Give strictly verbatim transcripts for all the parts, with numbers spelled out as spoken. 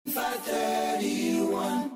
five thirty-one.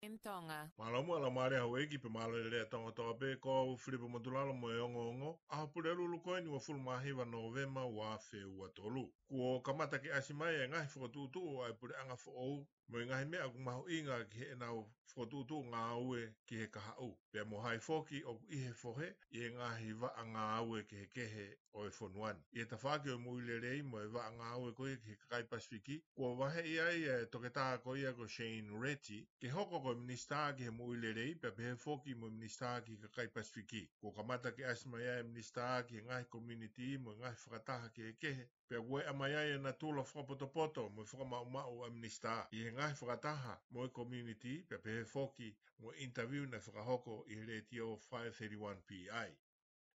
M Tonga. Mālō muʻa Laumālie Hauʻeiki pea mālō e lelei ʻa Tonga kotoa pē, ko au Filipe Motulalo mo e ongoongo ʻa e Pulelulu ko eni uofulu mā hiva Nōvema ua afe ua tolu. Kuo kamata ke ʻasi mai e ngaahi fokotuʻutuʻu ʻa e puleʻanga foʻou mo e ngaahi meʻa ʻoku mahuʻinga ki heʻenau fokotuʻutuʻu ngāue ki he kahaʻu. Pea mo hai foki ʻoku ʻi he fohe ʻi he ngaahi vaʻa ngāue kehekehe ʻo e fonua ni. ʻI he tafaʻaki ʻo e moʻui lelei mo e vaʻa ngāue ko ia ki he kakai Pasifiki, kuo vaheʻi ai e toketā ko ia ko Shane Reti ke hoko ko e minisitā ki he moʻui lelei, pea pehē foki mo e minisitā ki he kakai Pasifiki. Kuo kamata ke ʻasi mai ai e minisitā ki he ngaahi community mo e ngaahi fakataha kehekehe, pea kuo ʻomai ai e natula fakapotopoto mo e fakamaʻumaʻu ʻa e minisitā ʻi he ngaahi fakataha mo e community, pea pehē foki mo e interview naʻe fakahoko ʻi he letiō five thirty-one P I.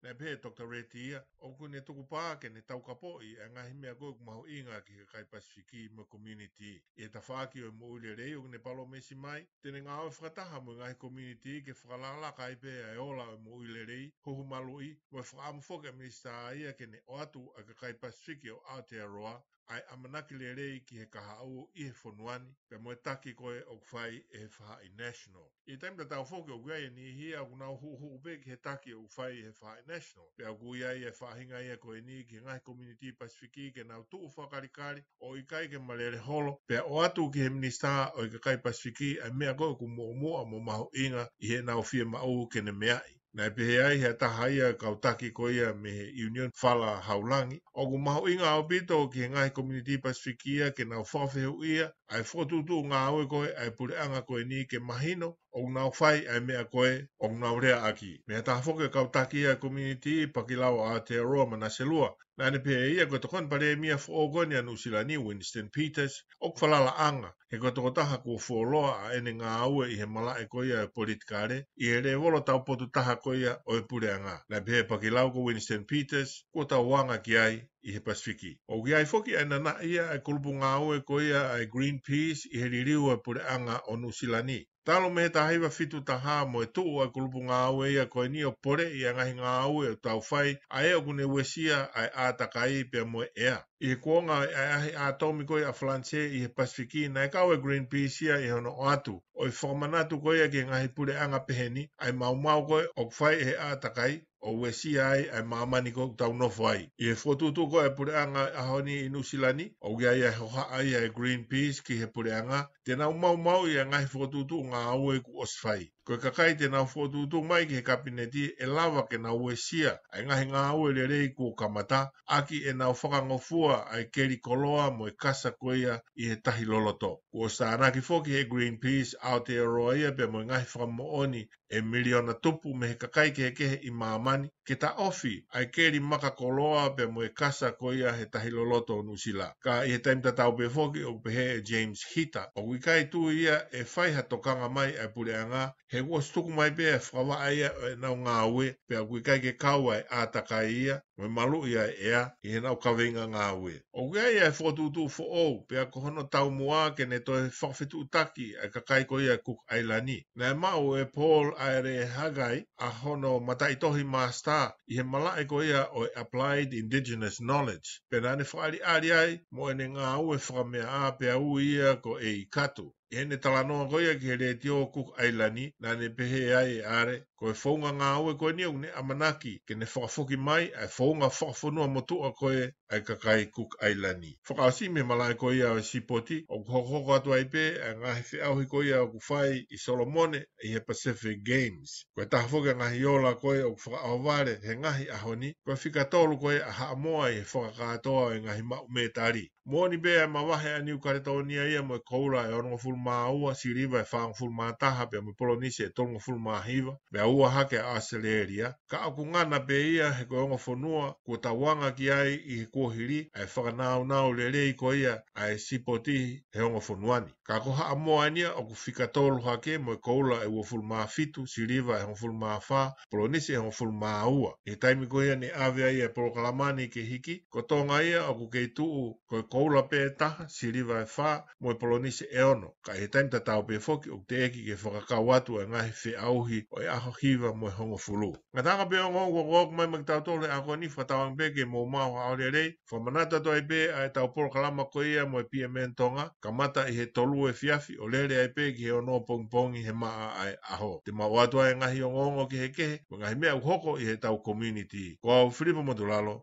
Naʻe pehē ʻe Doctor Reti ia ʻoku ne tukupā ke ne taukapoʻi e ngaahi meʻa ko ia ʻoku mahuʻinga ki he kakai Pasifiki mo e community. ʻI he tafaʻaki ʻo e moʻui lelei ʻoku ne palōmesi mai te ne ngāue fakataha mo e ngaahi community ke fakalakalaka ai pē ʻa e ola ʻo e moʻui lelei, huhu maluʻi, mo e fakaʻamu foki ʻa e minisitā ia ke ne ʻoatu ʻa e kakai Pasifiki ʻo Aotearoa ʻa e ʻamanaki lelei ki he kahaʻu ʻi he fonua ni, pea mo e taki ko ē ʻoku fai ʻe he Faʻahi National. ʻI he taimi tatau foki ʻoku ʻi ai e niʻihi ia ʻoku nau huʻuhuʻu pē ki he taki ʻoku fai ʻe he Faʻahi National. Pea ʻoku ʻi ai e faʻahinga ia ko eni ki he ngaahi community Pasifiki ke nau tuʻu fakakalikali ʻo ʻikai ke malele holo, pea ʻoatu ki he minisitā ʻo e kakai Pasifiki ʻa e meʻa ko ē ʻoku muʻomuʻa mo mahuʻinga ʻi heʻenau fiemaʻu ke ne meaʻi. Naʻe pehē ai ʻe ha taha ia e kau taki ko ia mei he Union Fala Haulangi, ʻoku mahuʻinga ʻaupito ki he ngaahi community Pasifiki ia ke nau fakafehuʻia ʻa e fokotuʻutuʻu ngāue ko ē ʻa e puleʻanga ko eni ke mahino ʻoku nau fai ʻa e meʻa ko ē ʻoku nau leaʻaki. Mei ha taha foki e kau taki ia e community, Pakilau ʻa Aotearoa Manaselua, naʻa ne pehē ʻe ia ko e tokoni palēmia foʻou ko eni ʻa Nuʻusila ni, Winston Peters, ʻoku falalaʻanga, he ko e tokotaha kuo fuoloa ʻa ʻene ngāue ʻi he malaʻe ko ia e politikale ʻi he lēvolo taupotu taha ko ia ʻo e puleʻanga. Naʻe pehē ʻe Pakilau ko Winston Peters kuo tau anga ki ai ʻi he Pasifiki. ʻOku ʻi ai foki ʻa e nanaʻi ia ʻa e kulupu ngāue ko ia ʻa e Greenpeace ʻi he liliu ʻa e puleʻanga ʻo Nuʻusila ni. Talu mei he taha hiva fitu taha mo e tuʻu ʻa e kulupu ngāue ia ko eni ʻo poleʻi ʻa e ngaahi ngāue ʻoku tau fai, ʻa ē ʻoku ne uesia ʻa e ʻātakai pea mo e ʻea. ʻI he kuonga ʻa e ʻaʻahi ʻātomi ko ia ʻa Falanisē ʻi he Pasifiki, naʻe kau e Greenpeace ia ʻi hono ʻoatu ʻo e fakamanatu ko ia ki he ngaahi puleʻanga pehē ni ʻa e maumau ko ē ʻoku fai ʻe he ʻātakai ʻo uesia ai ʻa e māmani ko ē ʻoku tau nofo ai. ʻI he fokotuʻutuʻu ko ē ʻa e puleʻanga ʻaho ni ʻi Nuʻusila ni, ʻoku ʻi ai e hohaʻa ia ʻa e Greenpeace ki he puleʻanga te nau maumauʻi ʻa e ngaahi fokotuʻutuʻu ngāue kuo ʻosi fai. Ko e kakai te nau fokotuʻutuʻu mai ki he kapineti ʻe lava ke nau uesia ʻa e ngaahi ngāue lelei kuo kamata, ʻaki ʻenau fakangofua ʻa e keli koloa mo e kasa ko ia ʻi he tahi loloto. Kuo ʻosi tānaki foki ʻe he Greenpeace Aotearoa ia pea mo e ngaahi fakamoʻoni ʻe miliona tupu mei he kakai kehekehe ʻi māmani ke taʻofi ʻa e keli maka koloa pea mo e kasa ko ia he tahi loloto ʻo Nuʻusila. Ka ʻi he taimi tatau pē foki ʻoku pehē ʻe James Hita ʻoku ʻikai tui ia ʻe fai ha tokanga mai ʻa e puleʻanga, he kuo ʻosi tuku mai pē ʻa e fakavaʻe ia ʻo ʻenau ngāue, pea ʻoku ʻikai ke kau ʻa e ʻātakai ia mo e maluʻi ʻa e ʻea ʻi heʻenau kaveinga ngāue. ʻOku ʻi ai ʻa e fokotuʻutuʻu foʻou, pea ko hono taumuʻa ke ne toe fakafetuʻutaki ʻa e kakai ko ia Cook ʻAilani. Naʻe maʻu ʻe Paul ʻAere Hagai ʻa hono mataʻitohi māsitā ʻi he malaʻe ko ia ʻo e Applied Indigenous Knowledge, pea naʻa ne fakaʻaliʻali ai mo ʻene ngāue fakameaʻa pea ui ia ko ʻEikatu. ʻI heʻene talanoa ko ia ki he letiō Cook ʻAilani, naʻa ne pehē ai ʻe ʻAere, ko e founga ngāue ko eni ʻoku ne ʻamanaki ke ne fakafoki mai ʻa e founga fakafonua motuʻa ko ē ʻa e kakai Cook ʻAilani. Fakaʻosi mei he malaʻe ko ia ʻo e sipoti, ʻoku hokohoko atu ai pē ʻa e ngaahi feʻauhi ko ia ʻoku fai ʻi Solomone ʻi he Pacific Games. Ko e taha foki ʻa e ngaahi ola ko ē ʻoku fakaʻohovale he ngaahi ʻaho ni, ko e fika tolu ko ē ʻa Haʻamoa ʻi he fakakātoa ʻo e ngaahi maʻu mētali. Moʻoni pē ʻa e mavahe ʻa Niu Kaletōnia ia mo e koula ʻe onongofulu mā ua, siliva ʻe fāngofulu mā taha pea mo e polonise ʻe tolungofulu mā hiva, pea ua hake ʻa ʻAositelēlia, ka ʻoku ngana pē ia he ko e ongo fonua kuo tau anga ki ai ʻi he kuohili ʻa e fakanaunau lelei ko ia ʻa e sipoti he ongo fonua ni. Ka ko Haʻamoa eni ia ʻoku fika tolu hake mo e koula ʻe uofulu mā fitu, siliva ʻe hongofulu mā fā, polonise ʻe hongofulu mā ua. ʻI he taimi ko ia ne ʻave ai e polokalama ni ke hiki, ko Tonga ia ʻoku kei tuʻu ko e koula pē ʻe taha, siliva ʻe fā, mo e polonise ʻe ono. Ka ʻi he taimi tatau pē foki ʻoku teʻeki ke fakakau atu ʻa e ngaahi feʻauhi ʻo e ʻaho hiva mo e hongofulu. Ngataʻanga pē ongoongo kuo ʻoku mai maʻa kitautolu he ʻaho ni, fakatauange pē ke mou maʻu ha ʻaho lelei. Fakamanatu atu ai pē ʻa ʻetau polokalama ko ia mo e P M N Tonga, kamata ʻi he tolu efiafi ʻo lele ai pē ki he ono pongipongi he maʻa ʻa e ʻaho. Te mau ʻoatu ai e ngaahi ongoongo kehekehe mo e ngaahi meʻa ʻoku hoko ʻi heʻetau community. Ko au Filipo Motulalo,